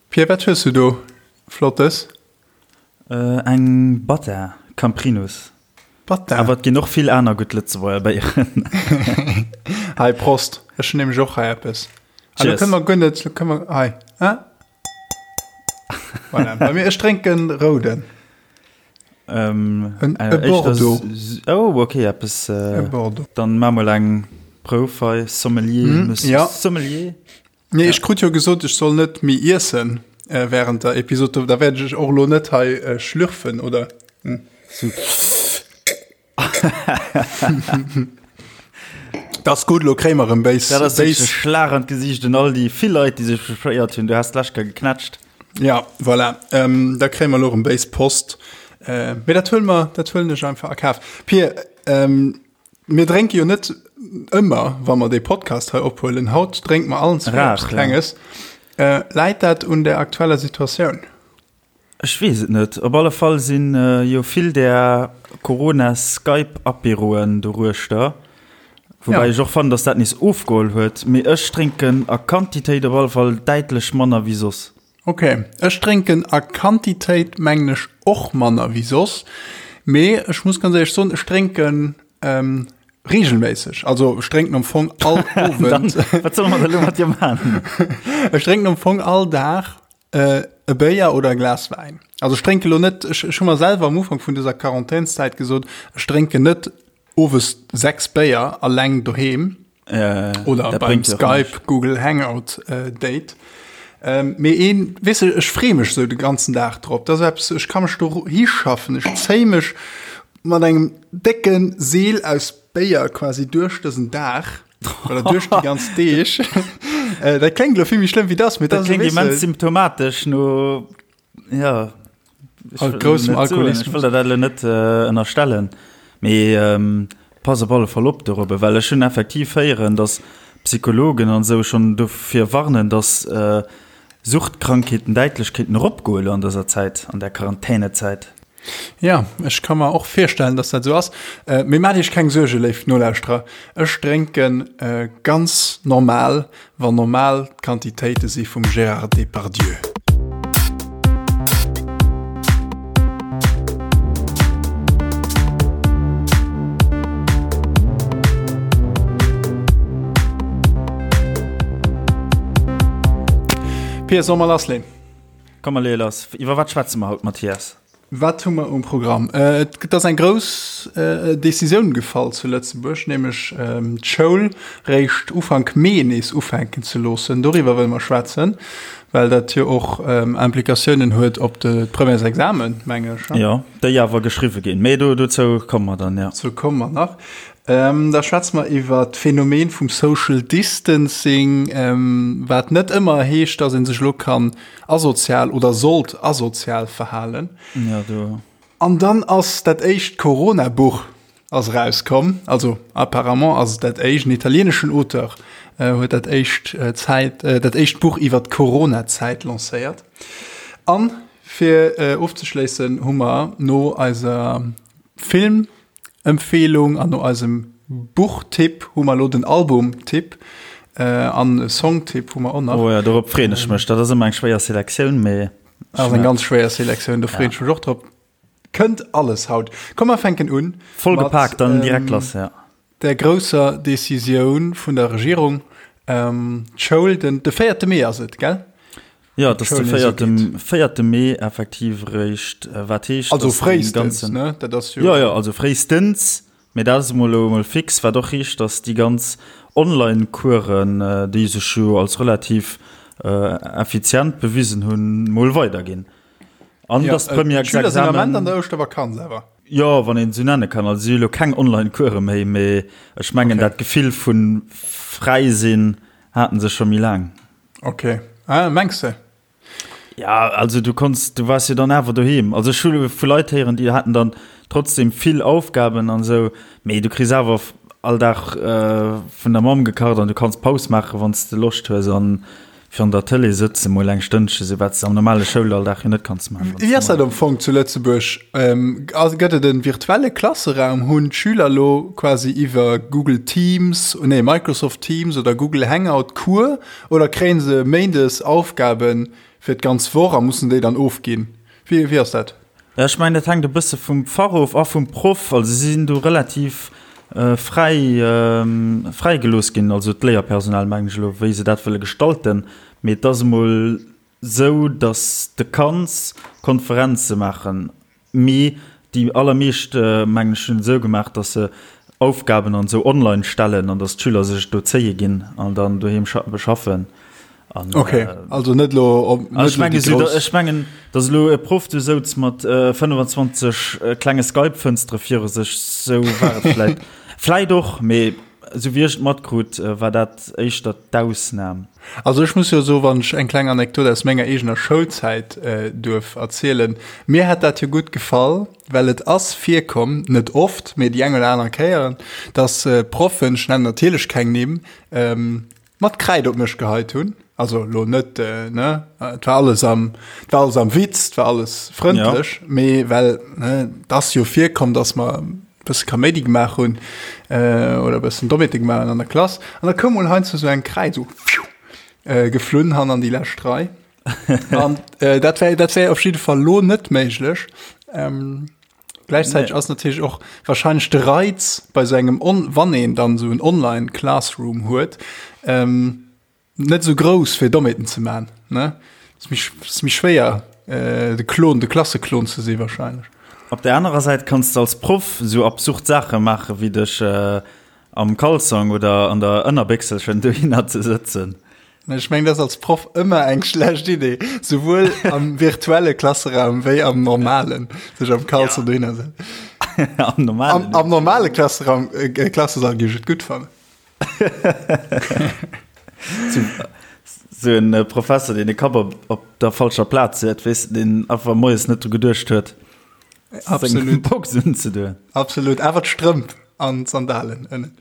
Pierre, wat hues du do Flottes? Eng Bata Camprinus. Bata. Awer et ginn och vill aner gutt Lëtzebuerger Béieren. Hei, Prost. Ech hunn nämlech och hei eppes. Ah, lo Cheers. kënne mer guer net, lo kënne mer, hei, ah. Voilà, bei mir, ech drénken rouden. Ähm, En, äh, e éischter Bordeaux. s- Oh, okay, eppes. E Äh, Bordeaux. dann maa mol eng Prouf hei, Sommelier, Mm, Monsieur ja. Sommelier. Nee, ech krut jo gesot, ech soll net méi iessen während der Episod. Da wäert ech och elo net hei schlürfen, oder? Dat ass gutt, elo kréie mer erëm béis. Dat ass wierklech e Schlag an d'Gesiicht un all déi vill Leit, déi sech beschwéiert hunn. Du has d'lescht Kéier geknätscht. Ja, voilà. Da kréie mer elo erëm béis Post. Mee dat huele mer, dat huelen ech einfach a Kaf. Pir, Mir drénke jo net ëmmer, wa mer dee Podcast hei ophuelen. Haut drénke mer allen zwee eppes Klenges. Läit dat un der aktueller Situatioun? Ech weess et net. Op alle Fall si jo vill där Corona-Skype-Apéroen doruechter. Woubäi ech och fannen, datt dat nees ofgeholl huet. Mee ech drénken a Quantitéit op alle Fall däitlech manner wéi soss. Ok, ech drénken a Quantitéit mengen ech och manner wéi soss, mee ech muss ganz éierlech soen, ech drénken regelméisseg, also ech drénken am Fong all Owend. Wat solle mer da lo mat dir man? Ech drénken am Fong all Dag e Béier oder e Glas Wäin. Also ech drénke lo net, ech hu mer selwer am Ufank vun dëser Quarantänszäit gesot, ech drénken net owes 6 Béier alleng doheem. Äh, Oder beim Skype, Google Hangout äh, Date. Ähm, mee een, weess du, ech free mech sou de ganzen Dag drop. Dat ass eppes, ech ka mech do hischaffen. Ech zéi mech mat engem décke Seel aus Béier quasi duerch dësen Dag. Oder duerch déi ganz Deeg. äh, dat kléngt lo vill méi schlëmm wéi dat, mee dat kléngt immens symptomatesch no Ja groussem Alkoholismus. Ech wëll der dat elo net ënnerstellen, mee pass op alle Fall op dorobber, well ech hunn effektiv héieren, datt Psychologen an esou schonn dofir warnen, datt Suchtkrankheeten däitlech kéinten eropgoe elo an dëser Zäit, an der Quarantänezäit. Ja, ech ka mer och virstellen, dass dat esou ass. Mee maacht iech keng Suerge, léif Nolauschterer, ech drénke ganz normal, wann normal d'Quantitéite si vum Gérard Depardieu. Pia, solle mer lassleen? Komm mer leeë lass. Iwwer wat schwätze mer haut, Mathias? Wat hu mer um Programm? Et ass eng grouss Decisioun gefall zu Lëtzebuerg, nämlech d'Schoul réischt Ufank Mee nees ufänken ze loossen. Doriwwer wëlle mer schwätzen, well dat jo och Implikatiounen huet op de d'Premièresexamen, mengen ech. Jo, déi awer geschriwwe ginn. Mee do, dozou komme mer dann, jo. Dozou komme mer nach. Da schwätze mer iwwer d'Phänomen vum Social Distancing, wat net ëmmer heescht, datt ee sech elo kann asozial oder sollt asozial verhalen. Ja, do. An dann ass dat éischt Corona-Buch ass erauskomm. Also apparemment ass et dat éischt. En italieneschen Auteur huet dat éischt Zäit, dat éischt Buch iwwer d'Corona-Zäit lancéiert. An fir ofzeschléissen hu mer no eiser Film Empfehlung an no eisem Buchtipp hu mer elo den Albumtipp an e Songtipp hu mer och nach. Oh ja, dorop freeën ech mech. Dat ass ëmmer eng schwéier Selektioun, mee. Dat ass eng ganz schwéier Selektioun, do freeën ech mech och drop. Kënnt alles haut. Komm mer fänken un. Voll gepaakt, dann direkt lass, ja. Der grousser Decisioun vun der Regierung, d'Schoul, den de véierte Mee ass et, gell? Jo, et ass de véierte, véierte Mee effektiv eréischt, wat heescht, Also fréistens, ne? Dat ass jo. Jo, jo, also fréistens, mee dat ass emol elo emol fix, wat och heescht, datt déi ganz Online-Coursen, déi sech jo als relativ effizient bewisen hunn, mol weiderginn. An Ja, datt d'Premièresexamen. D'Schüler sinn am Ament an der Ouschtervakanz awer. Jo, wann een et esou nenne kann. Also si hu lo keng Online-Course méi, mee ech mengen, dat Gefill vu fräi sinn haten se scho méi laang. Ok. Ah, mengs de? Ja, also du konns, du waars jo dann awer doheem. Also ech hu vu Leit héieren, déi haten dann trotzdem vill Aufgaben an esou, mee du kriss awer all Dag vun der Mamm gekacht an du kanns Paus maachen, wann s de Loscht hues an. Virun der Tëlee sëtzen, mol eng Stënnche, sou wat s de am normale Schoulalldag jo net kanns maachen. Wéi ass dat am Fong zu Lëtzebuerg? Gëtt et e virtuelle Klasseraum? Hunn d'Schüler elo quasi iwwer Google Teams, nee Microsoft Teams oder Google Hangout Cours oder kréie se méindes Aufgabe fir d'ganz Woch a mussen déi dann ofginn? Wéi ass dat? Ja, ech mengen, dat hänkt e bësse vum Fach of a vum Proff. Also si sinn do relativ fräi, fräi gelooss ginn, also d'Léierpersonal mengen ech elo, wéi se dat wëlle gestalten. Mee et ass emol esou, datt s de kanns Konferenze maachen, mee déi allermeescht, mengen ech, hunn et esou gemaach, datt se Aufgaben an esou online stellen an datt d'Schüler sech et do zéie ginn an dann doheem beschaffen. An, okay, äh, also net lo op, net ech mengen, so, ech mengen dass lo e Prof du souz mat äh, 25 äh, klenge Skype-Fënstere viru sech sou war et vläit vläit och mee sou wéi ech et matkrut äh, war dat éischter d'Ausnam. Also ech muss jo so wann ech eng kleng Anekdot aus menger eegener Schoulzäit äh, duerf erzielen mir hätt dat jo gutt gefall well et ass virkomm net oft mee déi eng oder aner Kéieren dass äh, Proffen ech nennen natierlech keng Nimm ähm, mat Kräid op mech geheit hunn, also lo net ne, et war alles am, et war alles am Witz, et war alles frëndlech, ja. mee well ne, et ass jo virkomm, dass mer e bësse Kaméidi gemaach hunn äh, oder e bëssen Dommheete gemaach hunn an der Klass, an da koum mol heiansdo sou eng Kräid sou pfiuh, äh, geflunn han an déi lescht Rei. An äh, dat wär, dat wär op jidde Fall lo net méiglech. Ähm, Gläichzäiteg ass natierlech och wahrscheinlech de Reiz bei sou engem on wann een dann sou en Online Classroom huet, ähm, net sou grouss fir Dommheeten ze man ne. Ass méi ass méi schwéier äh, de Klon, de Klasseklon ze si wahrscheinlech. Op der anerer Säit kanns de als Proff sou absurd Saache maache wéi dech äh, am Kalzong oder an der Ënnerbéchselchen dohinner ze sëtzen. Ech mengen, dat ass als Proff ëmmer eng schlecht Idee, souwuel am virtuelle Klasseraum wéi am normalen, sech am Kalzong ja. dohinner setzen. Am normalen. Am, am normale Klasseraum, äh, Klassesall géif ech et gutt fannen. Sou en äh, Professor, deen de Kapp op, op der falscher Plaz huet, weess de, deen einfach moies net dru geduecht huet. Absolut. Box unzedoen. Absolut. Awer d'Strëmp an d'Sandalen ënnen.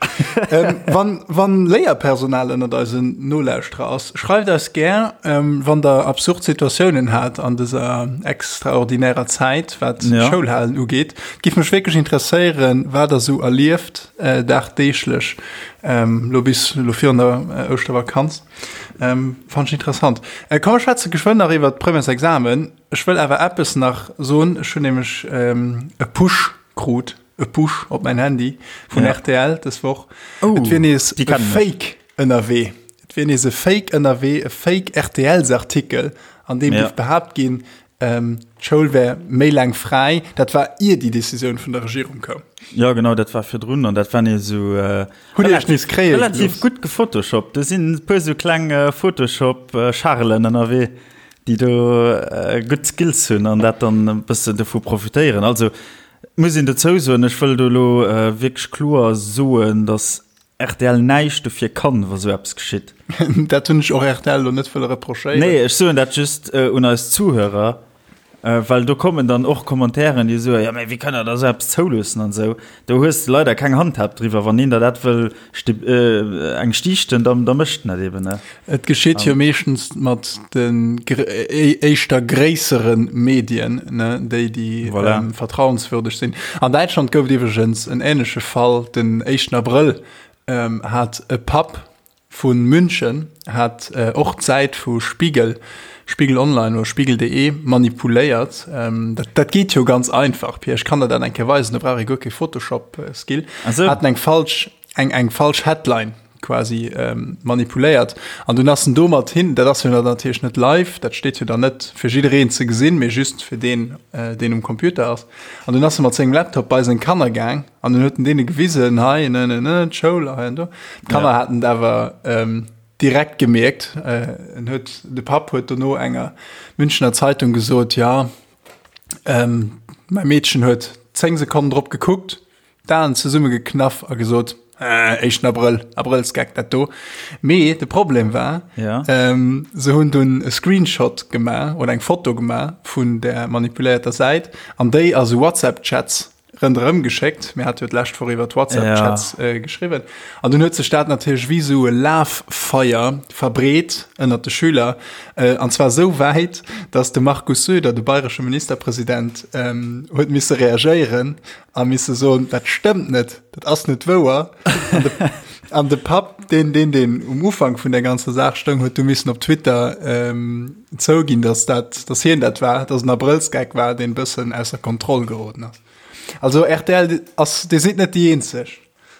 ähm, wann, wann Léierpersonal ënnert eisen Nolauschterer ass, schreift eis gär, ähm, wann der absurd Situatiounen hat an dëser extraordinärer Zäit, wat ja. Schoulhalen ugeet. Giff mech wierklech interesséieren, wat der sou erlieft äh, dagdeeglech ähm, lo bis lo virun der äh, Ouschtervakanz. Ähm, fand ich interessant. Äh, komm, wir schwätze geschwënn nach iwwer d'Premièresexamen. Ech wëll awer eppes nach soen, ech hunn nämlech e Push krut, e Push op mäin Handy vun ja. RTL dës Woch. Oh, et wier nees e Fake ënnerwee. Et wier nees e Fake ënnerwee, e Fake RTLs-Artikel, an deem ja. géif behaapt ginn, ähm, d'Schoul wär méi laang fräi. Dat war ier déi Decisioun vun der Regierung koum. Ja genau, dat war virdrun an dat war nees esou äh, Hutt Dir Iech nees kréie relativ gelooss? gutt gefotoshoppt. Do sinn e puer sou kleng äh, Photoshop-Charelen ënnerwee. déi do gutt Skills hunn an dat dann e bëssen dovu profitéieren. Also muss een dozou soen, ech wëll do elo wierklech kloer soen, datt rtl näischt dofir kann, wa sou eppes geschitt. Dat hunn ech och rtl elo net wëlle reprochéieren. Nee, ech soen dat just un eis Zuhörer, well do kommen dann och Commentairen, déi soen, jo mä wéi kënnt Der da sou eppes zouloossen an esou. Do hues de leider keng Handhab driwwer. Wann een der dat wëll eng stiichten, da da mécht en dat eben, ne? Et geschitt jo meeschtens mat den éischter gréissere Medien, ne, déi déi voilà. ähm, vertrauenswürdeg sinn. An Däitschland gouf et iwwregens en änleche Fall, den éischten Abrëll ähm, hat e Papp Vu München hat och d'Säit vu Spiegel, Spiegel Online oder Spiegel.de manipuléiert. Dat, dat geet jo ganz einfach, Pia, ech kann der dat eng Kéier weisen, do brauch ee guer kee Photoshop-Skill. Haten eng falsch, eng, eng falsch Headline quasi manipuléiert an dunn ass en domat hin, dat ass jo dann natierlech net live, dat steet jo dann net fir jiddereen ze gesinn, mee just fir deen, deen um Computer ass. An dunn ass e mat sengem Laptop bei seng Kanner gaang An dunn huet en deene gewisen, hei, ne, ne, ne, d'Schoul, hei an do. D'Kanner ja. haten et awer ähm, direkt gemierkt. Äh, en huet, de Papp huet dono enger Münchener Zeitung gesot, ja, ähm, mäi Meedchen huet 10 Sekonnen drop gekuckt, d'Aen zesummegeknaff a gesot, äh, éischten Abrëll, Abrëllsgeck dat do. Mee de Problem war, ja. ähm, se hunn dunn e Screenshot gemaach oder eng Foto gemaach vun der manipuléierter Säit an déi a sou WhatsApp-Chats. Ronderëm geschéckt. Mir hate jo d'lescht Woch iwwer d'WhatsApp-Chats ja. geschriwwen. An dunn huet sech dat natierlech wéi sou e Lafeier verbreet ënnert de Schüler. Äh, an zwar sou wäit, datt de Markus Söder, de bayresche Ministerpresident, ähm, huet misse reagéieren a misse soen, dat stëmmt net, dat ass net wouer. An de, an de Papp, deen, deen, deen um Ufank vun der ganzer Saach stoung, huet du missen op Twitter ähm, zouginn, dass dat, dass hien dat war, dass en Abrëllsgeck war, deen bëssen ausser Kontroll geroden ass. Also rtl ass, Dir sidd net déi eenzeg.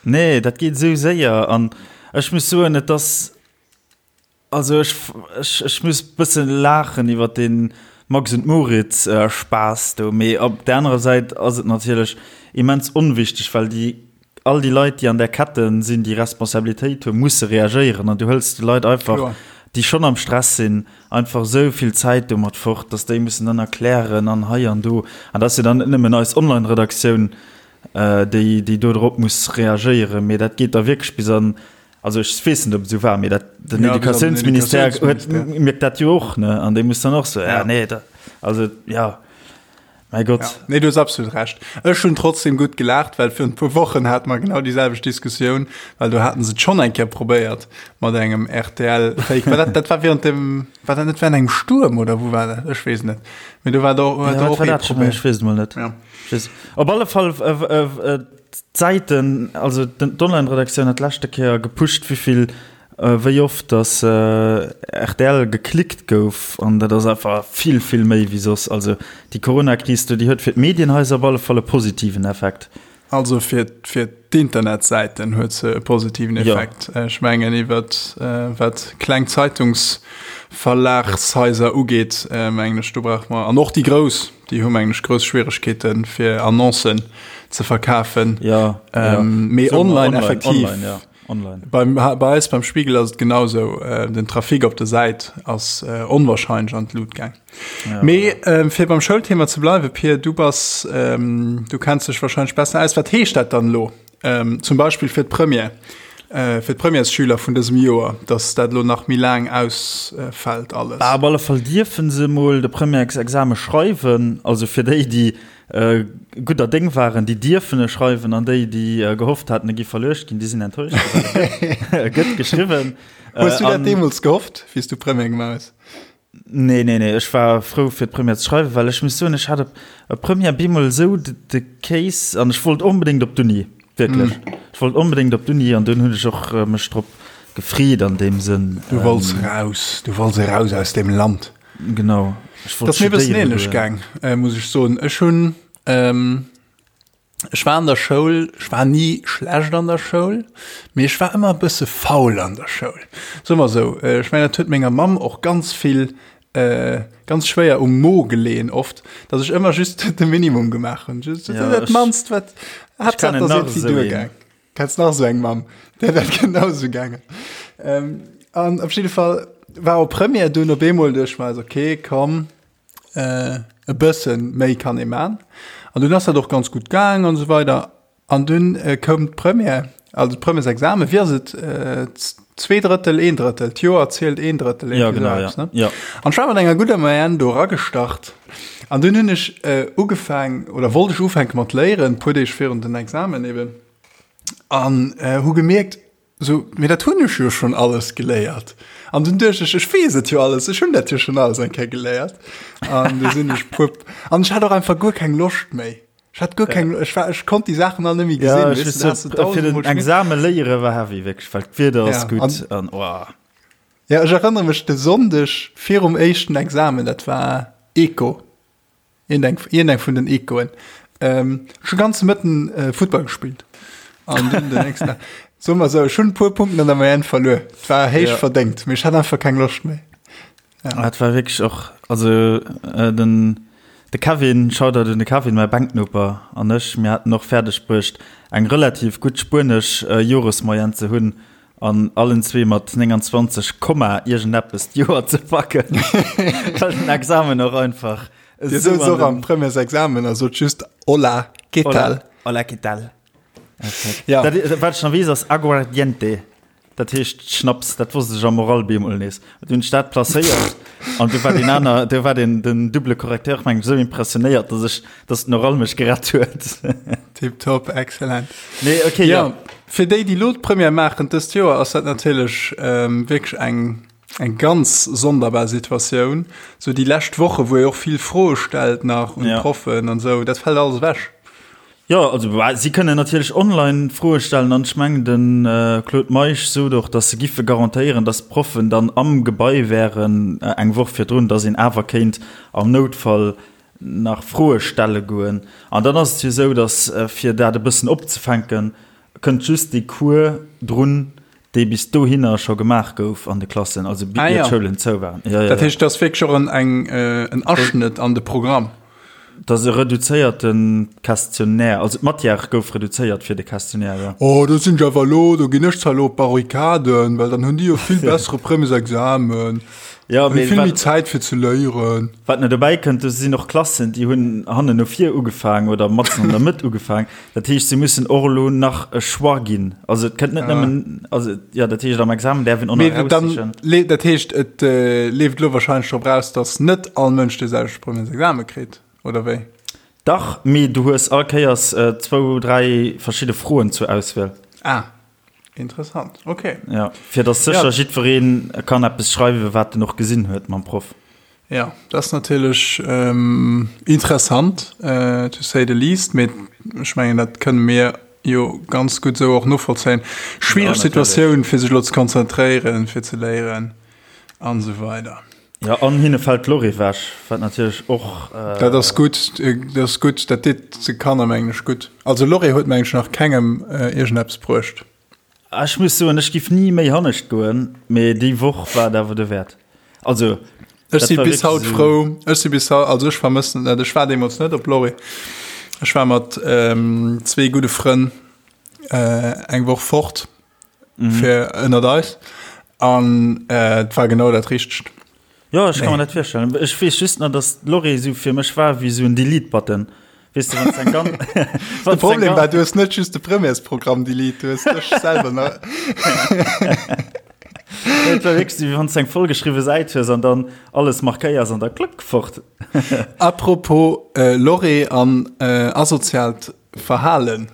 Nee, dat geet esou séier an ech muss soen, et ass, also ech, ech, ech muss bësse laachen iwwer dee Max und Moritz Spaass do, mee op där anerer Säit ass et natierlech immens onwichteg, well déi all déi Leit, déi an där Kette sinn, déi Responsabilitéit hunn, musse reagéieren. An du hëls de Leit einfach, déi schonn am Stress sinn, einfach esou vill Zäit domat fort, datt déi mussen dann erklären an hei an do. An dat ass jo dann net nëmmen eis Online-Redaktioun, déi, déi do drop muss reagéieren, mee dat geet da wierklech bis an, also ech weess net, ob et esou war, mee dat, den Educatiounsministère huet, mierkt dat jo och, ne? An dee muss dann och soen, ja, nee, da, also, ja. Mäi Gott. Ja. Nee, du hues absolut Recht. Ech hunn trotzdem gutt gelaacht, well virun e puer Wochen hate mer genau déi selwecht Diskussioun, well do haten se et schonn eng Kéier probéiert mat engem RTL-Fake. War dat, dat war während dem, war dat net während engem Stuerm oder wou war dat? Ech weess net. Mee do war do, ja, do och ee Problem. Ech weess et mol net. Ja. Op alle Fall, äh, äh, d'Säiten, also d'Online-Redaktioun hat d'leschte Kéier gepusht, wéivill Wéi oft dass rtl geklickt gouf, an dat ass einfach vill, vill méi wéi soss. Also déi Coronakris do, déi huet fir d'Medienhaiser op alle Fall e positiven Effekt. Also fir fir d'Internetsäiten huet se e positiven Effekt. Ja. Ech mengen iwwer wat kleng Zeitungsverlagshaiser ugeet, mengen ech, do brauche mer, an och déi grouss, déi hu mengen ech grouss Schwieregkeete fir Annoncen ze verkafen. Ja, ja. Mee online effektiv. Online, ja. Online. Beim, bei eis beim Spiegel ass et genau sou. Äh, den Trafic op der Säit ass äh, onwahrscheinlech an d'Lut gaang. Ja, Mee ähm, fir beim Schoulthema ze bleiwe, Pir, du bass, ähm, du kenns dech wahrscheinlech besser aus. Wat heescht dat dann lo? Ähm, zum Beispill fir d'Première, äh, fir d'Premièresschüler vun dësem Joer, dass dat lo nach méi laang ausfällt alles. Bah, op alle Fall dierfe se mol de Premièresexame schreiwen, also fir déi, déi Gudder Déng waren, déi dierfen e schreiwen, an déi, déi gehofft haten, e gi verluecht ginn, déi sinn enttäuscht. E gëtt geschriwwen. Hues du dat deemools gehofft, wéi s du Première gemaach hues? Nee, nee, nee, ech war frou, fir d'Première ze schreiwen, well ech muss soen, ech hat op Première bemol esou de Case an ech wollt onbedéngt op d'Uni, wierklech. Ech wollt onbedéngt op d'Uni an dunn hunn ech och mech drop gefreet an deem Sënn. Du wollts raus, du wollts eraus aus deem Land. Genau. Ech wollt Das mir bëssen ähnlech gaang, äh, muss ech soen. Ech hunn ähm, ech war an der Schoul, ech war ni schlecht an der Schoul, mee ech war ëmmer e bësse faul an der Schoul. Soe mer esou, äh, ech mengen, dat huet menger Mamm och ganz vill äh, ganz schwéier um Mo geleeën oft, dass ech ëmmer just de Minimum gemaach hunn. Just Ja, dat ech- mannst, wat Haaptsaach, dass kennen nach irgendwie esou een. duergaang. Kenns nach esou eng Mamm, där dat genau esou gaangen. Ähm, an op jidde Fall war op Première dunn op eemol duerch mer, okay, komm, äh, e bëssen méi kann ee man. An dunn ass dat och ganz gutt gaang an esou weider. An dunn äh, koum d'Première, also d'Premièresexamen, wéi ass et, äh, Zweedrëttel, een Drëttel, d'Joer zielt een Drëttel, ja, genau, ja. ne? Ja. An ech war mat enger gudder Moyenne do eragestart. An dunn hunn ech äh, ugefaang, oder wollt ech ufänke mat léieren, puer Deeg virun den Examen eben. An äh, hu gemierkt, so, mee dat hunn ech jo schon alles geléiert. An dunn duecht ech, ech weess et jo alles, ech hunn dat jo schon alles eng Kéier geléiert. An du sinn ech puer, an ech hat och einfach guer keng Loscht méi. Ech hat guer keng, ech war, ech konnt déi Saachen all net méi Ja, gesinn. ech Weess du, da wëss has du net, fir den tausendmol schmier. Exame léiere war heavy, wierklech, well d'Wieder ass Ja, gutt an an oh. ja, ech erënnere mech de Sonndeg virum éischten Examen, dat war Eco. Iergendeng, iergendeng vun den Ecoen. Ähm, ech hu ganze Mëtten äh, Futtball gespillt. An dunn den nächsten Dag, soe mer esou, ech hunn e puer Punkten an der Moyenne verluer. Et war héich Ja. verdéngt, mee ech hat einfach keng Loscht méi. Ja. Et war wierklech och, also äh, den, de Kevin, Shoutout un de Kevin, mäi Bänknoper, an ech, mir haten och fäerdeg bruecht, eng relativ gutt spuenesch äh, Joresmoyenne ze hunn an allen zwee mat 29 Komma iergendeppes d'Joer ze packen, well den Examen och einfach Dir souz och am Premièresexamen a sot just Hola, ¿qué tal? Hola, ¿qué tal? Ja. Dat, wat ech nach weess, ass Aguardiente. Dat heescht Schnaps. Dat wosst ech am Oral bemol nees. Du hunn ech dat placéiert an du war den aner, du war den, den double Correcteur, meng ech, esou impressionéiert, dass ech, dass den Oral mech gerett huet. Tipptopp, excellent. Nee, okay, ja. ja. Fir déi, déi lo d'Première maachen dëst Joer, ass dat natierlech ähm, wierklech eng, eng ganz sonderbar Situatioun. Sou déi lescht Woche, wou ee och vill Froe stellt nach un Ja. d'Proffen an esou, dat fält alles ewech. Jo, also bah, si kënnen natierlech online Froe stellen an ech mengen de Claude Meisch sot och, datt se giffe garantéieren, datt d'Proffen dann am Gebai wären eng Woch virdrun, datt een awer kéint am Noutfall nach Froe stelle goen. An dann ass et jo esou, datt fir dat e bëssen opzefänken, kënnt just dee Cours drun, dee bis dohinner scho gemaach gouf an de Klassen, also Ah, ier ja. d'Schoulen zou waren. Ja, ja, Dat ja. heescht, dat ass wierklech och en, eng, en Aschnëtt an de Programm. Dat ass e reduzéierte Questionnaire, also d'Matière gouf reduzéiert fir de Questionnaire, jo. Oh, do sinn ech awer elo, do ginn ech zwar elo op d'Barrikaden, well dann hunn déi jo vill bessere Premiersexamen, Ja, hunn mee vill méi wat, Zäit fir ze léieren. wat nach dobäi kënnt, do sinn och Klassen, déi hunn hannen no vir ugefaang oder matzen an der Mëtt ugefaang. Dat heescht, si mussen och elo nach e Choix ginn. Also et kënnt net nëmmen, also jo, dat heescht am Examen däerf een och nach Mee dann, eraussichen. le- dat heescht, et leeft elo wahrscheinlech drop raus, datt net all Mënsch dee selwechte Premiersexame kritt, oder wéi? Dach, mee du hues all Kéiers zwou, dräi verschidde Froen zur Auswiel. Ah, interessant, okay. Ja, fir datt sécher Ja. jiddweree kann eppes schreiwen, wat en och gesinn huet mam Proff. Ja, dat ass natierlech interessant, to say the least, mee ech mengen, dat kënne mir jo ganz gutt esou och novollzéien. Schwiereg Situatioun, fir sech elo ze konzentréieren, fir ze léieren an esou weider. Ja, an hinne fält d'Lorry ewech, wat natierlech och. Dat ass gutt, dat ass gutt, dat deet de Kanner, mengen ech, gutt. Also Lorry huet, mengen ech, nach kengem iergendeppes bruecht. Ech muss soen, ech giff ni méi hannescht goen, mee déi Woch war et awer dowäert. Also, Ech dat si war bis wierklech haut esou. frou, ech si bis haut, also ech vermëssen et net. Ech war deemools net op Lorry. Ech war mat zwee gudde Frënn eng Woch fort fir ënnert eis an et war genau dat Richtegt. Jo, ech ka mer dat virstellen. Ech weess just nach, dass d'Lorry esou fir mech war wéi esou en Delete-Button. Weess de, wann s eng ganz. De Problem war, du hues net just de Premièresprogramm delete, du hues dech selwer nach. Et war wierklech esou, wéi wann s eng vollgeschriwwe Säit hues an dann alles markéiers an da klëck, fort. Apropos Lorry an asoziaalt Verhalen.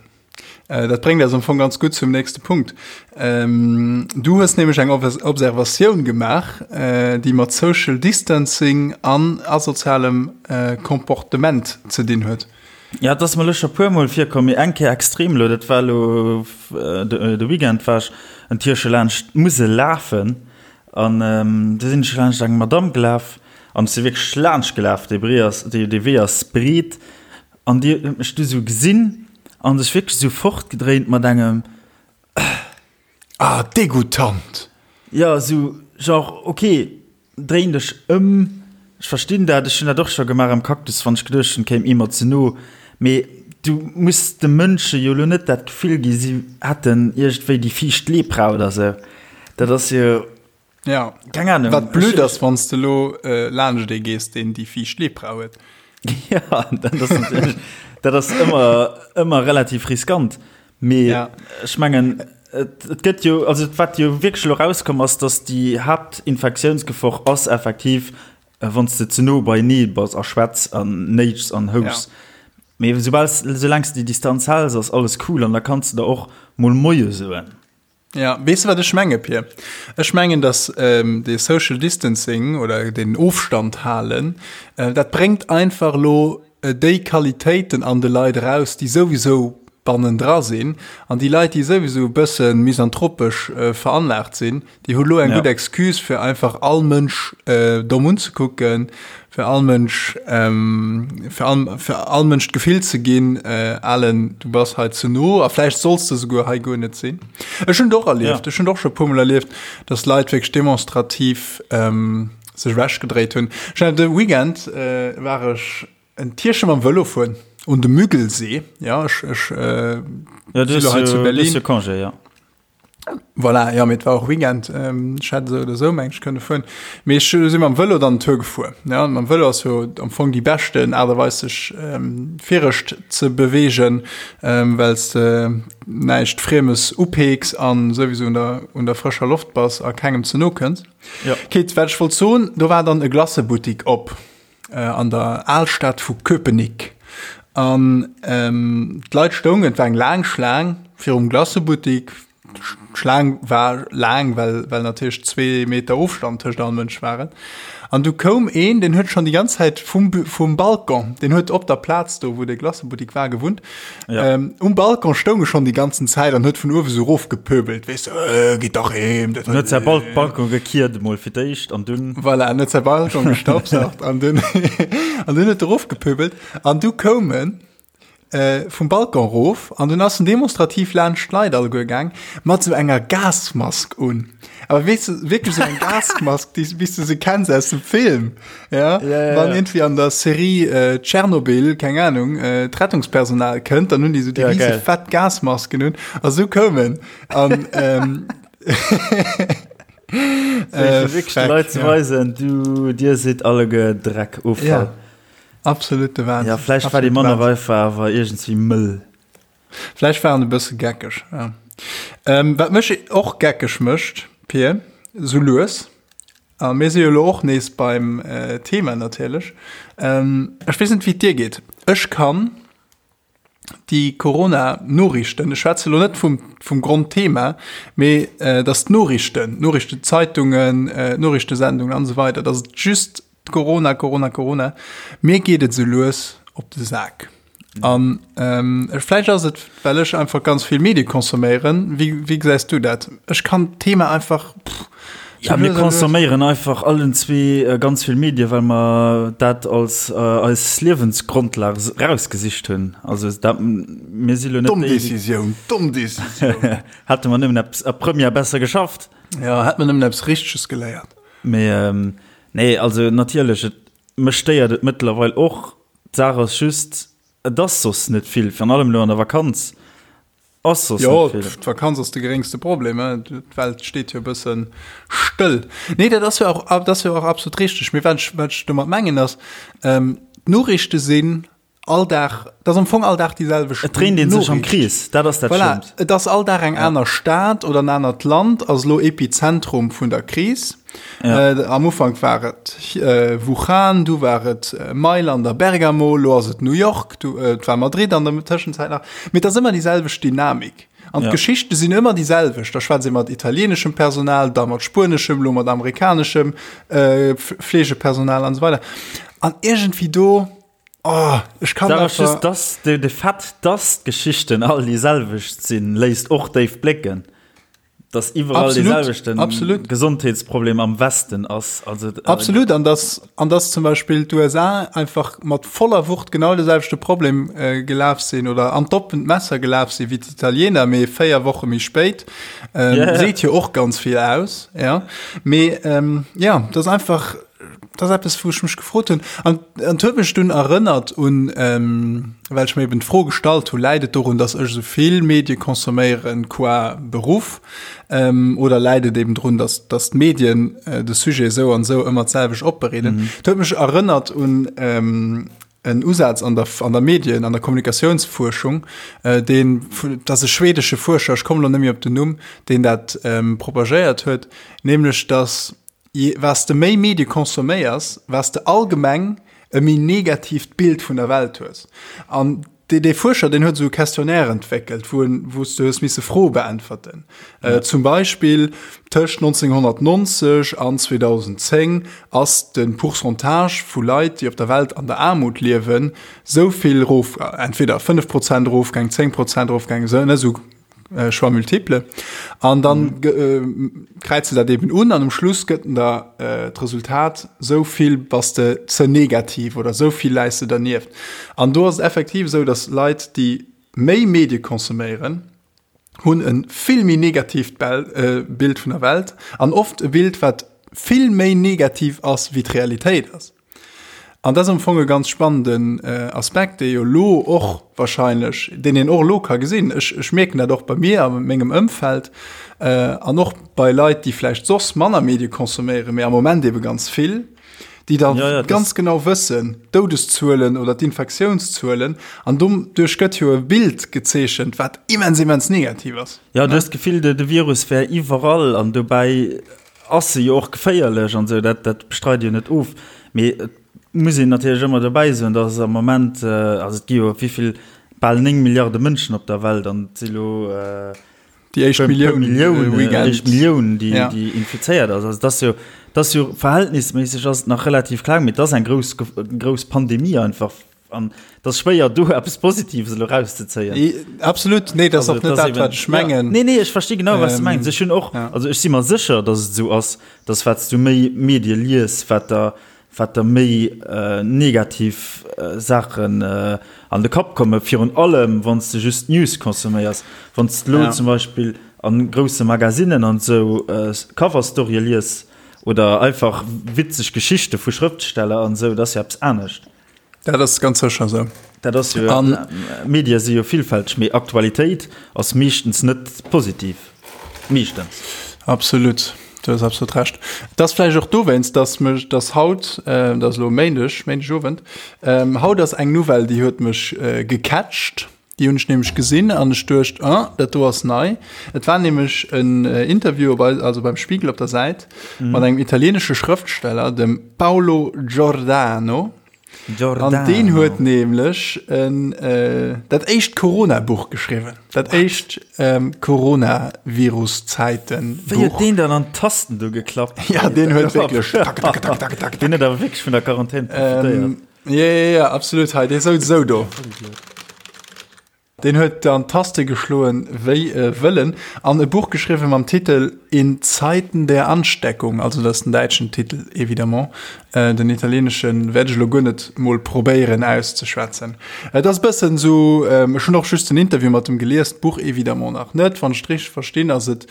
Dat bréngt eis am Fong ganz gutt zum nächste Punkt. Du hues nämlech eng Observatioun gemaach, déi mat Social Distancing an asozialem Comportement ze dinn huet. Ja, et ass mer elo scho puer Mol virkomm, mee eng Kéier extrem elo. Dat war elo de Weekend, war ech en Tierche laanscht d'Musel lafen an du sinn ech laanscht eng Madamm gelaf an ech si wierklech laanscht gelaf. Dee Bree ass, dee Wee ass breet An déi huet mech du sou gesinn an sech wierklech sou fortgedréint mat engem Äh. Ah, degoutant! Jo, sou genre, ok, dréin dech ëm, ech verstinn dat, ech hunn dat och scho gemaach am Cactus, wann ech geduecht hunn, kéim ee mer ze no, mee du muss de Mënsche jo lo net dat Gefill gi si hätten iergendwéi déi fiicht Lepra oder sou. Dat ass jo. Ja. Keng Ahnung. Wat blöd ass, wann s de lo äh, laanscht ee gees, deen déi fiicht Lepra huet. Ja, dat ass natierlech, dat ass ëmmer, ëmmer relativ riskant. Mee Ja. ech mengen, et, et gëtt jo, also wat jo wierklech elo rauskomm ass, datt déi Haaptinfektiounsgefor ass effektiv, äh, wann s de ze no beienee bass a schwätz an néitschs an houschs. Ja. Mee soubal s, soulaang s de déi Distanz häls, ass alles cool an da kanns de der och mol Moie soen. Ja, weess de wat ech menge Pir? Ech mengen, datt dee Social Distancing oder deen Ofstand halen, dat bréngt einfach elo déi Qualitéiten an de Leit eraus, déi souwisou bannendra sinn. An déi Leit, déi souwisou e bësse misanthropesch veranlaagt sinn, déi hu lo eng gutt Excuse, fir einfach all Mënsch domm unzekucken, fir all Mënsch, fir all, fir all Mënsch d'Gefill ze ginn, Alen, du bass hei ze no a vläicht solls de souguer hei guer net sinn. Ech hunn et och erlieft, ech hunn et och scho e puermol erlieft, dass Leit wierklech demonstrativ sech ewechgedréit hunn. Ech hat de Weekend war ech en Tierche mam Vëlo fueren un de Müggelsee, ja, ech, ech si lo hei zu Berlin. Du hues jo Congé, ja. Voilà, ja, mee et war och Weekend, ech hätt esou oder esou meng ech kënne fueren. Mee ech si mam Vëlo dann Tour gefuer. Ja, mam Vëlo ass jo am Fong déi beschten Aart a Weis sech virescht ze beweegen, well s de näischt Friemes upeeks an souwisou un der, un der frëscher Loft bass a kengem ze no kënns. Ja. Kit, wat ech wollt soen, do war dann e Glacebuttik op an der Alstad vu Köpenick. An d'Leit stoungen, et war eng laang Schlaang virum Glacëbuttik. D'Schlaang war laang, well, well natierlech zwee Meter Ofstand tëscht all Mënsch waren. An du koum een, deen huet schonn déi ganz Zäit vum, vum Balcon, deen huet op der Plaz do, wou de Glacëbuttik war, gewunnt. Ja. Ähm, um Balcon stoung e schonn déi ganzen Zäit an huet vun uewe sou erofgepöbelt, weess de, äh, gitt dach heem. Dat huet säi Bal Balcon gekiert emol fir d'éischt an dunn. Voilà, en huet säi Balcon gestaubsaugt an dunn, an dunn huet e erofgepöbelt. An du koum en äh, vum Balcon rof an dunn ass en demonstrativ laanscht d'Leit alleguer gaang mat sou enger Gasmask un. Awer weess de, wierklech sou eng Gasmask, déi, wéi s de se kenns aus dem Film, ja? Ja, ja, Wann ja. irgendwie an der Serie äh, Tschernobyl, keng Ahnung, äh, d'Rettungspersonal kënnt, dann hunn déi sou déi Ja, riese geil. fett Gasmasken un a sou koum en. An ähm, Äh, wierklech de Leit ze weisen, du, dir sidd alleguer Dreck, Offall. Ja. Absolute Wahnsinn. Ja, vläicht war déi manner einfach awer iergendswéi mëll. Vläicht war en e bësse geckeg, ja. Ähm, wat mech och geckeg mécht, Pir, sou lues, a mir si jo elo och nees beim äh, Thema natierlech, ähm, ech weess net, wéi et dir geet, ech kann déi Corona-Noriichten, ech schwätze lo net vum, vum Grondthema, mee äh, dass d'Noriichten, d'Noriichtezeitungen, äh, d'Noriichtesendungen an esou weider, dass et just Corona, Corona, Corona, mir geet et esou lues op de Sak. An ähm, vläicht ass et, well ech einfach ganz vill Medie consomméieren. Wéi, wéi gesäis du dat? Ech kann d'Thema einfach. Pff, Ja, mir consomméieren einfach allen zwee äh, ganz vill Medie, well mer dat als äh, eis Liewensgrondlag rausgesicht hunn. Also dat, mir si lo net. Domm Decisioun, domm Decisioun. Hätte mer nëmmen eppes a Première besser geschafft. Ja, hätt mer nëmmen eppes Richteges geléiert. Mee ähm, nee, also natierlech, et, mech stéiert et mëttlerweil och. D'Saach ass just, et ass soss net vill, virun allem elo an der Vakanz ass soss Jo, net vill. d'Vakanz ass de geréngste Problem, hein. D'Welt steet jo e bësse stëll. Nee, dat ass jo och, dat ass jo och absolut richteg. Mee wat ech, wat ech domat mengen ass, ähm, d'Noriichte sinn all Dag, dat ass am Fong all Dag déi selwecht Et dréint ee sech am Krees, dat ass dat Voilà, Schlëmmt. et ass all Dag eng aner Stad oder en anert Land ass elo Epizentrum vun der Kris. Ja. Äh, am Ufank war et äh, Wuhan, du war et äh, Mailand a Bergamo, lo ass et New York, du, äh, et war Madrid an der Tëschenzäit nach. Mee et ass ëmmer déi selwecht Dynamik. An ja. d'Geschichte sinn ëmmer déi selwecht. Da schwätzt ee mat italieneschem Personal, da mat spueneschem, lo mat amerikaneschem äh, Fleegepersonal an so weider. An irgendwie do, oh, ech kann Sag einfach... just, dass de, de Fait, dass d'Geschichten all déi selwecht sinn, léisst och déif blécken. Dass iwwerall dee selwechten absolut. Gesondheetsproblem am Westen ass. Also, äh, absolut, an dass, an dass zum Beispill d'USA einfach mat voller Wucht genau de selwechte Problem äh, gelaf sinn oder an d'oppent Messer gelaf sinn wéi d'Italiener, mee 4 Woche méi spéit. Ähm, yeah. Seet jo och ganz vill aus. Ja. Mee ähm, ja, das einfach das ass eppes, wou ech mech gefrot hunn. An et huet mech dunn erënnert un, ähm, well ech mir eben d'Fro gestallt hu, läit et dorun, datt ech esou vill Medie consomméieren qua Beruff, ähm, oder läit et eben drun, datt, datt d'Medien äh, de Sujet esou an esou ëmmer d'selwecht opbereeden. Mhm. Et huet mech erënnert un ähm, en Usaz an der, an der Medien, an der Kommunikatiounsfuerschung, äh, deen, dat ass e schwedesche Fuerscher, ech kommen elo net méi op den Numm, deen dat ähm, propagéiert huet, nämlech datt Wat s de méi Medie consomméiers, wat s de allgemeng e méi negatiivt Bild vun der Welt hues. An dee, dee Fuerscher, deen huet esou e Questionnaire entwéckelt, wou en, wou s de hues misse Froe beäntwerten. Ja. Zum Beispill, tëscht 1990 an 2010 ass de Pourcentage vu Leit, déi op der Welt an der Aarmut liewen, esou vill erof, entweder 5 Prozent erofgaang, 10 Prozent erofgaang, esou, ne, esou Choix multiple. An dann mhm. kräize dat eben un an um Schluss gëtt der äh, d'Resultat sou vill bass de ze negativ oder sou vill läis de dernieft. An do ass et effektiv sou, dass Leit, déi méi Medie consomméieren, hunn e vill méi negatiivt äh, Bild vun der Welt an oft e Bild, wat vill méi negativ ass, wéi d'Realitéit ass. An dat ass am Fong e ganz spannenden Aspekt, dee jo elo och wahrscheinlech, deen een och elo ka gesinn. Ech, ech mierken dat och bei mir a mengem Ëmfeld an och bei Leit, déi vläicht soss manner Medie consomméieren, mee am Moment ebe ganz vill, déi da ja, ja, ganz genau wëssen, d'Doudeszuelen oder d'Infektiounszuelen. An doduerch gëtt jo e Bild gezeechent, wat immens, immens negativ ass. Ja, du hues d'Gefill, de Virus wär iwwerall an dobäi Ass se jo och geféierlech an esou, dat dat bestreide jo net of, mee et Muss een natierlech ëmmer dobäi soen, dass am Moment, also et gi jo wéi vill, bal 9 Milliarde Mënschen op der Welt an et si lo déi éischt Millioun, déi éischt Millioun, déi ja. déi infizéiert ass. Also dat ass jo, dat ass jo verhältnisméisseg ass et nach relativ kleng, mee et ass eng grouss, grouss Pandemie einfach an et ass schwéier do eppes Positives elo erauszezéien. Absolut, nee, dat ass och net dat, wat ech mengen. Ja. Nee, nee, ech versti genau, wat s du mengs. Ech hunn och, ja. also ech si mer sécher, dass et esou ass, dass wat s du méi Medie lies, wat der wat der méi negativ Saachen an de Kapp kommen, virun allem wann s de just News consomméiers. Wann s de elo zum Beispill a grousse Magazinen an esou Cover-Storye lies oder einfach witzeg Geschichte vu Schrëftsteller an esou, dat ass jo eppes anescht. Dat ass ganz sécher esou. Dat ass jo, Medie si jo villfälteg, mee Aktualitéit ass meeschtens net positiv. Meeschtens. Absolut, du hues absolut Recht. Et ass vläicht och dowéinst, dass mech, dass haut, dat ass elo Méindeg, Méindegowend, haut ass eng Nouvelle, déi huet mech gecatcht. Déi hunn ech nämlech gesinn an ech duecht, ah, dat do ass nei. Et war nämlech en Interview op eis, also beim Spiegel op der Säit, mat engem italieenesche Schrëftsteller, dem Paolo Giordano. Giordano. An deen huet nämlech en, dat éischt Corona-Buch geschriwwen. Dat éischt Coronavirus-Zäiten-Buch. Wéi huet deen dann an d'Tasten do geklappt? Ja, deen huet wierklech tak, tak, tak, tak, tak. Deen huet awer wierklech vun der Quarantän profitéiert. Ja, ja, ja, absolut. Hei, dee souz esou do. Deen huet an d'Taste geschloen wéi e Wëllen an e Buch geschriwwen mam Titel In Zeiten der Ansteckung, also dat ass den däitschen Titel évidemment, den italieenesche wäert ech elo guer net mol probéieren auszeschwätzen. Et ass e bëssen esou, ech hunn och just den Interview mat em gelies, d'Buch évidemment nach net. Wann ech et richteg verstinn, ass et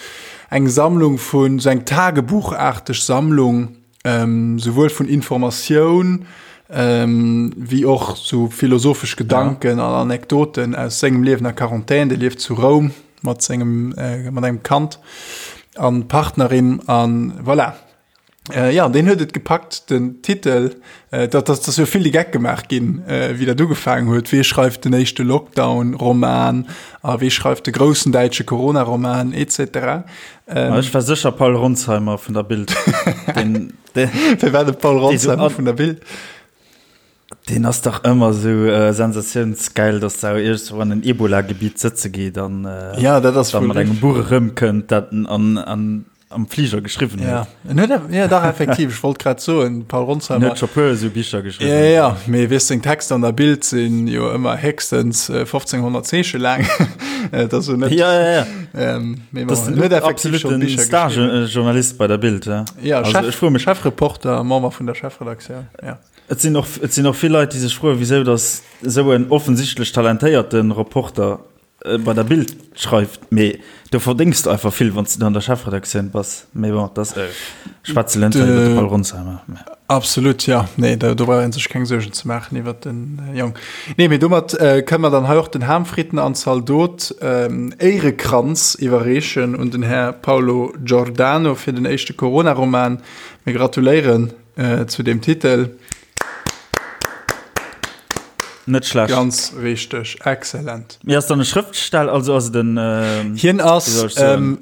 eng Sammlung vun, esou eng Tagebuchaarteg Sammlung, souwuel vun Informatioun wéi och sou philosophesch Gedanken an Anekdoten aus sengem Liewen a Quarantän. Dee lieft zu Roum mat sengem mat engem Kand an Partnerin an voilà. Jo, deen huet et gepackt, den Titel, dat ass jo vill de Geck gemaach ginn, wéi dat ugefaangen huet, Wee schreift den éischte Lockdown-Roman a wee schreift de groussen däitsche Corona-Roman et cetera. Ähm, ech war sécher Paul Ronzheimer vun der Bild. Den, den, Wie war de Paul Ronzheimer vun der Bild? Den ass dach ëmmer sou äh, sensatiounsgeil, dass der iergendwou an en Ebola-Gebiet sëtze geet an äh, ja, dat ass dann mat engem Buch erëmkënnt, dat en an, an am Fliger geschriwwen huet. Ja, en huet, ja dach effektiv, ech wollt grad soen, Paul Ronsheimer. En huet scho puer esou Bicher geschriwwen. Ja, ja, mee weess seng Texter an der Bild sinn jo ëmmer héchstens 1500 Zeeche laang. Dat ass jo net. Ja, ja, ja. Ähm, mee bon, en huet effektiv scho Bicher geschriwwen. Star-Journalist bei der Bild, ja. Ja, also, Chef, ech froe mech. Chefreporter, Member vun der Chefredaktioun, ja. Et sinn och, et sinn och vill Leit, déi sech froen, wisou datt esou en offensichtlech talentéierte Reporter bei der Bild schreift, mee do verdéngs de einfach vill, wann s de do an der Chefredaktioun bass. Mee bon, dat schwätze elo net iwwer de Paul Ronsheimer. Absolut, jo. Nee, do brauch ee sech keng Suergen ze maachen iwwer de Jong. Nee, mee domat kënne mer dann hei och den Ham, Fritten an Zaldot Éierekranz iwwerreechen un den Här Paolo Giordano fir den éischte Corona-Roman. Mir gratuléieren zu deem Titel. Net schlecht. Ganz richteg, excellent. Mee ass dann e Schrëftsteller, also ass et en Hien ass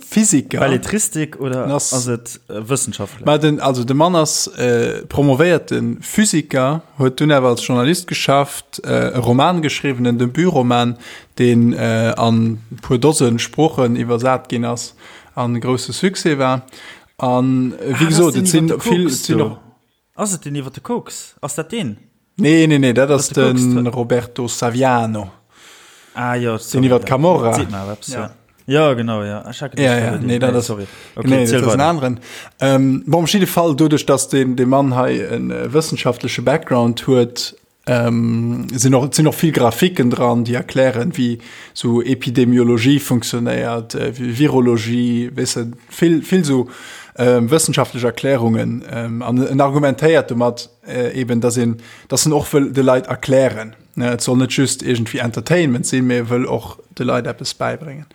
Physiker. Belletristik oder ass et Wëssenschaftler? Ma den, also de Mann ass promovéierte Physiker, huet dunn awer als Journalist geschafft, e Roman geschriwwen, en Debutroman, deen an e puer Dose Sproochen iwwersat ginn ass an e grousse Succès war. An wéi gesot, et sinn vill, et sinn och. Ass et deen iwwer de Koks? Ass dat deen? Nee, nee, nee, dat ass de Roberto Saviano. Ah jo, sorry. Deen iwwer d'Camorra. Seet mer eppes, ja. Ja, genau, ja. Ech hat geduecht, ja, ja, nee, dat ass, sorry. Okay, nee, dat ass en aneren. Ähm, bon, op jidde Fall, doduerch, dass deen, dee Mann hei en wëssenschaftleche Background huet, Ähm, sinn och, sinn och vill Grafiken dran, déi erklären, wéi sou Epidemiologie funktionéiert, äh, wéi Virologie, weess de, vill, vill sou ähm, wëssenschaftlech Erklärungen. Ähm, an en argumentéiert domat äh, eben, dass een, dass en och wëll de Leit erklären. Ne, et soll net just iergendwéi Entertainment sinn, mee e wëll och de Leit eppes bäibréngen.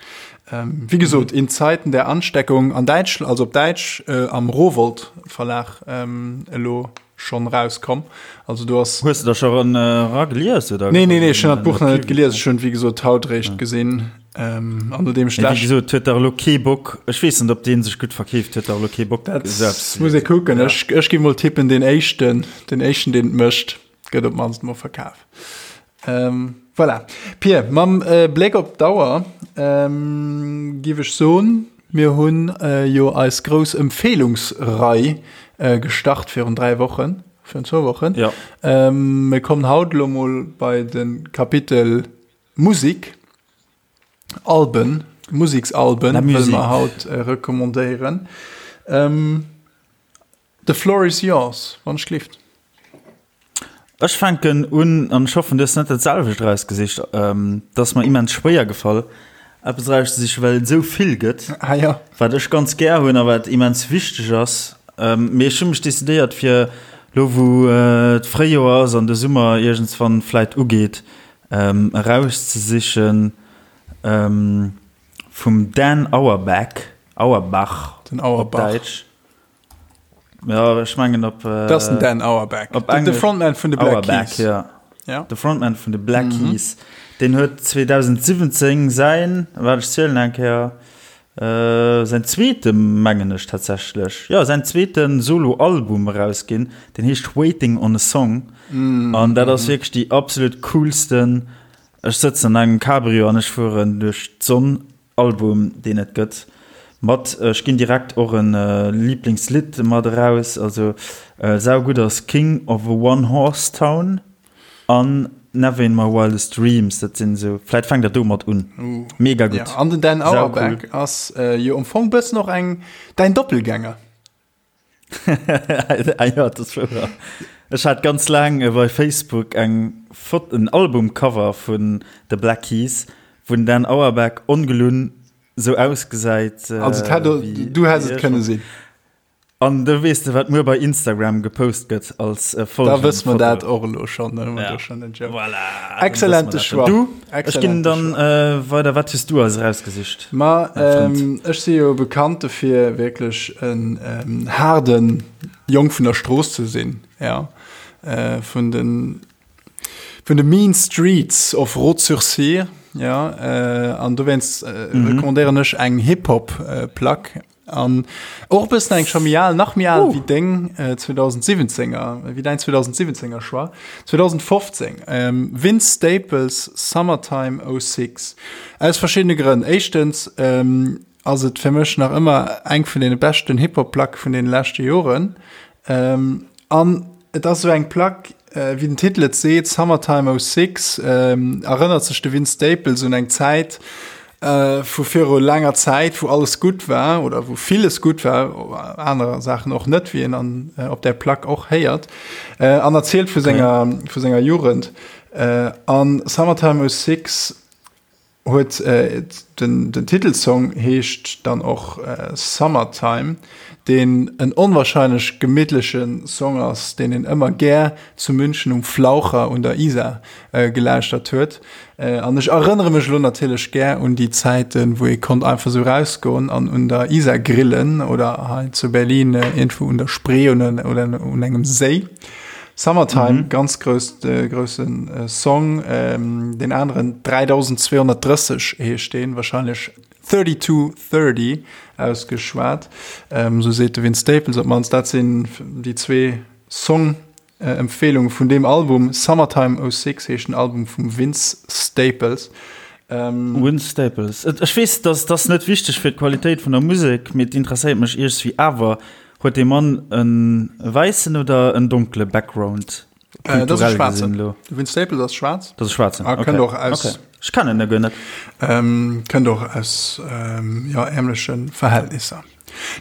Ähm, wéi gesot, in Zeiten der Ansteckung an Däitsch, also op Däitsch, äh, am Rowohlt Verlag ähm, elo. Schonn rauskomm. Also do ass. Hues de der scho ran eragelies oder? Nee, nee, nee, ech hunn dat Buch nach net gelies. Ech hunn et wéi gesot haut réischt gesinn. Ähm, an nodeem ech Wéi gesot, huet dach elo kee Bock. Ech weess net, ob dee sech gutt verkeeft, huet dach elo kee Bock. Dat muss ee kucken. Ech, ech gi mol tippen, deen éischten, den éischten, deen et mécht, gëtt op d'mannst mol verkaf. Ähm, voilà. Pir, mam äh, Bléck op d'Auer ähm, giff ech soen, mir hunn äh, jo eis grouss Empfehlungsrei äh, gestart virun 3 Wochen, virun zwou Wochen. Ja. Ähm, mir kommen haut lo mol bei de Kapitel Musik, Alben, Musiksalben wëlle mer haut äh, recommandéieren. Ähm, The floor is yours, wann ech gelift. Ech fänken un, an ech hoffen, du hues net dat selwecht erausgesicht. Et ass mer immens schwéier gefall, eppes erauszesichen, well et esou vill gëtt, Ah jo. wat ech ganz gär hunn a wat immens wichteg ass. Mee ech hu mech decidéiert, fir elo wou d'Fréijoer ass an de Summer iergendswann vläit ugeet, erauszesichen vum Dan Auerbach, Auerbach Den op Auerbach. Däitsch. Ja, ech mengen op. Äh, das den Dan Auerbach. Op de Frontman vun de Black Auerbach, Keys. Ja. Ja. De Frontman vun de Black mhm. Keys. Den huet 2017 sein, wat ech zielen eng Kéier, äh, sein zweete mengen ech tatsächlech. Ja, sein zweeten Solo-Album erausginn. Den heescht Waiting on a Song. Mhm. An dat ass mhm. wierklech déi absolut coolsten. Ech sëtzen an engem Cabrio an ech fueren duerch d'Sonn Album deen et gëtt mat, ech ginn direkt och en Lieblingslidd mat eraus, also saugutt ass King of a One Horse Town an Never in My Wildest Dreams, dat sinn esou, vläit fänkt der domat un, mega gutt. An den Dan Auerbach ass jo am Fong bëssen och eng däin Doppelgänger. Ah jo, dat ass wouer. Ech hat ganz laang bei Facebook eng Fot en Albumcover vun The Black Keys, wou den Dan Auerbach ongelunn sou ausgesäit. Also et hätt, du häss et kënne sinn. An do weess de, wat muer bei Instagram gepost gëtt als Folgenfoto. Da wësse mer dat och elo schonn, da hu mer do schonn den Joke. Voilà, Exzellente Choix. Du, ech ginn dann weider. Wat hues du eis erausgesicht? Ma ech si jo bekannt dofir, wierklech en haarde Jong vun der Strooss ze sinn, ja, vun de vun de mean streets of Rotz-sur-Syre, ja, an dowéinst recommandéieren ech eng Hip-Hop-Plack. An och e bëssen eng scho méi al, nach méi al wéi deng 2017er, wéi däin 2017er Choix. 2015, Vince Staples, Summertime 06. Aus verschiddene Grënn. Éischtens ass et fir mech nach ëmmer eng vun deene beschten Hip-Hop-Placke vun deene leschte Joren. An et ass esou eng Plack, wéi den Titel et seet, Summertime 06, erënnert sech de Vince Staples un eng Zäit, vu viru laanger Zäit, wou alles gutt war oder wou villes gutt war, aner Saachen och net, wéi een an op där Plack och héiert, an erzielt vu senger, vu senger Jugend. An Summertime 06 huet den, den Titelsong heescht dann och Summertime, deen en onwahrscheinlech gemittleche Song ass, deen een ëmmer gär zu München um Flaucher un der Isar gelauschtert huet. An ech erënnere mech elo natierlech gär un déi Zäiten, wou ee konnt einfach esou rausgoen an un der Isar grillen oder hei zu Berlin iergendwou un der Spree oder un engem Séi. Summertime, ganz grouss, grousse Song. Deen aneren, 3230 heescht deen, warscheinlech 3230 ausgeschwat, esou seet de Vince Staples op d'mannst. Dat sinn déi zwee Song. Empfehlung vun deem Album, Summertime 06 heescht den Album vum Vince Staples. Vince Staples, ech weess dass dass net wichteg fir d'Qualitéit vun der Musek, mee et interesséiert mech iergswéi awer, huet dee Mann e wäissen oder en donkele Background? Dat ass e schwaarzen. De Vince Staples ass schwaarz. Dat ass e schwaarzen, ok. A kënnt och aus. Ok, ech kennen e guer net. Kënnt och aus, jo, ärmleche Verhältnisser.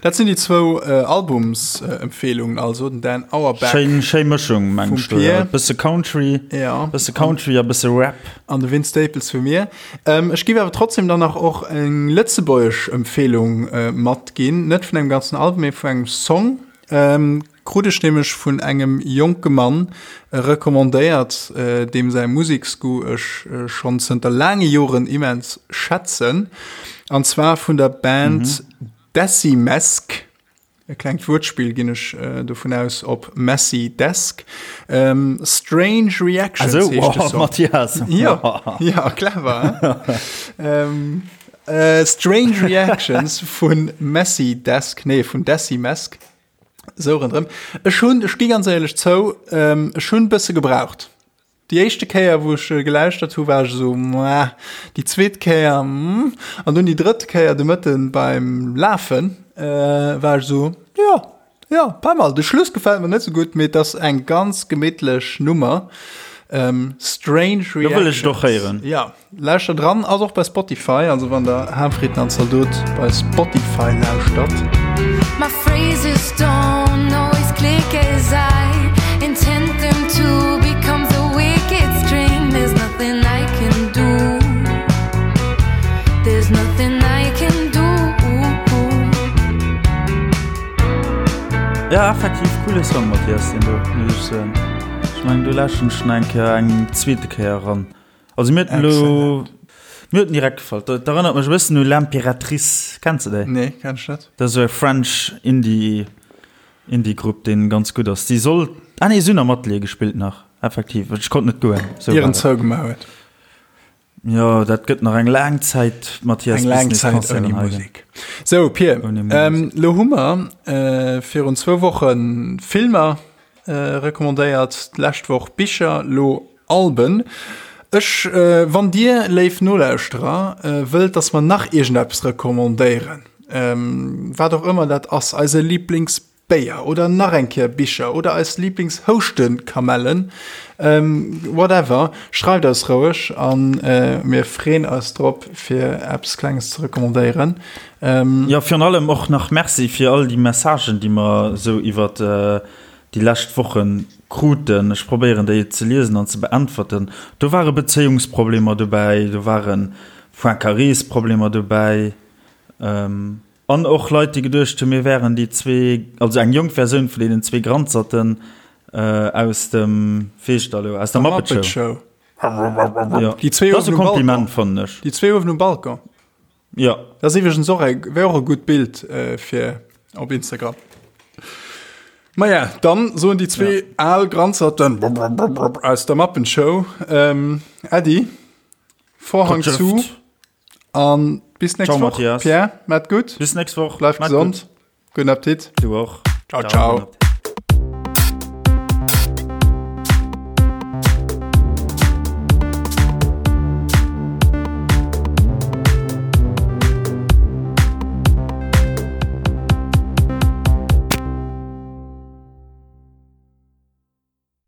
Dat sinn déi zwou Albumsempfehlungen, also den Dan Auerbach. Schéin, schéi Mëschung, meng ech do, ja. Bësse Country, ja. Bësse Country a bësse Rap. An de Vince Staples vu mir. Ech giff awer trotzdem dann nach och eng lëtzebuergesch Empfehlung matginn, net vun engem ganzen Album, mee vu engem Song. Krut ech nämlech vun engem jonke Mann recommandéiert, deem säi Museksgoût ech schonn zënter laange Joren immens schätzen, an zwar vun der Band Decimesk. E klengt Wuertspill, ginn ech dovun aus, op Messy Desk. Strange Reactions also, heescht de Song. Mathias. Ja, ja, clever. ähm, äh, Strange Reactions vun Messy Desk, nee, vun Desi Mesk. Sou rëndrëm. Ech hunn, ech gi ganz éierlech zou, ähm, ech hunn bësse gebraucht. Déi éischte Kéier, wou ech gelauschtert hu, war ech esou, Mwah. Déi zweet Kéier, mm. An dunn déi drëtt Kéier de Mëtten beim Lafen, war ech esou, Jo, jo, pas mal. De Schluss gefält mer net esou gutt, mee et ass eng ganz gemittlech Nummer. Strange Reactions. Lo wëll ech et och héieren. Jo, lauschter dran. Ass och bei Spotify, also wann der Harmfrieden an Zaldot bei Spotify lauschtert. My phrases don't always click as I intend them to Becomes a wicked stream There's nothing I can do There's nothing I can do Ja, effektiv coole Song, Mathias, deen do, muss ech soen. Ech mengen, do lauschteren ech nach eng Kéier, eng zweete Kéier eran. Also mir huet elo mir huet direkt gefall. Dat erënnert mech e bëssen u L'Impératrice. Kenns de déi? Nee, kenn ech net. Dat ass esou e French Indie Indie Grupp deen ganz gutt ass. Déi soll ah nee si hunn am Atelier gespillt nach effektiv. Ech konnt net goen. Sou war Ieren dat. zougemaach huet. Jo dat gëtt nach eng laang Zäit Mathias Eng bis laang nees Zäit Concerten ouni hei ginn. Musek. Sou Pir, Ouni Musek. elo hu mer virun zwou Woche Filmer recommandéiert, d'lescht Woch Bicher, lo Alben. Ech, wann dir, léif Nolauschterer, wëllt, dass mer nach iergendeppes recommandéieren, wat och ëmmer dat ass, eise Liblingsbéier oder nach eng Kéier Bicher oder eis Lieblingshouschtekamellen, whatever, schreift eis roueg a mir freeën eis drop, fir eppes Klenges ze recommandéieren. Jo, virun allem och nach Merci fir all déi Messagen, déi mer esou iwwert déi lescht Woche kruten. Ech probéieren déi ze liesen an ze beäntwerten. Do ware Bezéiungsproblemer dobäi, do ware Poincarés-Problemer dobäi an och Leit, déi geduecht hunn, mir wären déi zwee, also eng jonk Versioun vun deenen zwee Granzerten aus dem, wéi heescht dat elo, aus der Muppet Show. Jo, Déi zwee dat ass e uewen um Balcon. Kompliment, fannen ech. Déi zwee uewen um Balcon. Jo. Dat ass iwwregens och e, wär och e gutt Bild fir op Instagram. Maja, dann soen déi zwee al Granzerten aus der Mappenshow Äddi, Vorhang zu an bis nächst Ciao, Woch. Mathias. Pierre, maat gutt. Bis nächst Woch. Bleif Maat gesond. gutt. Gudden Appetit. Du och. Ciao, ciao. gudden Appetit.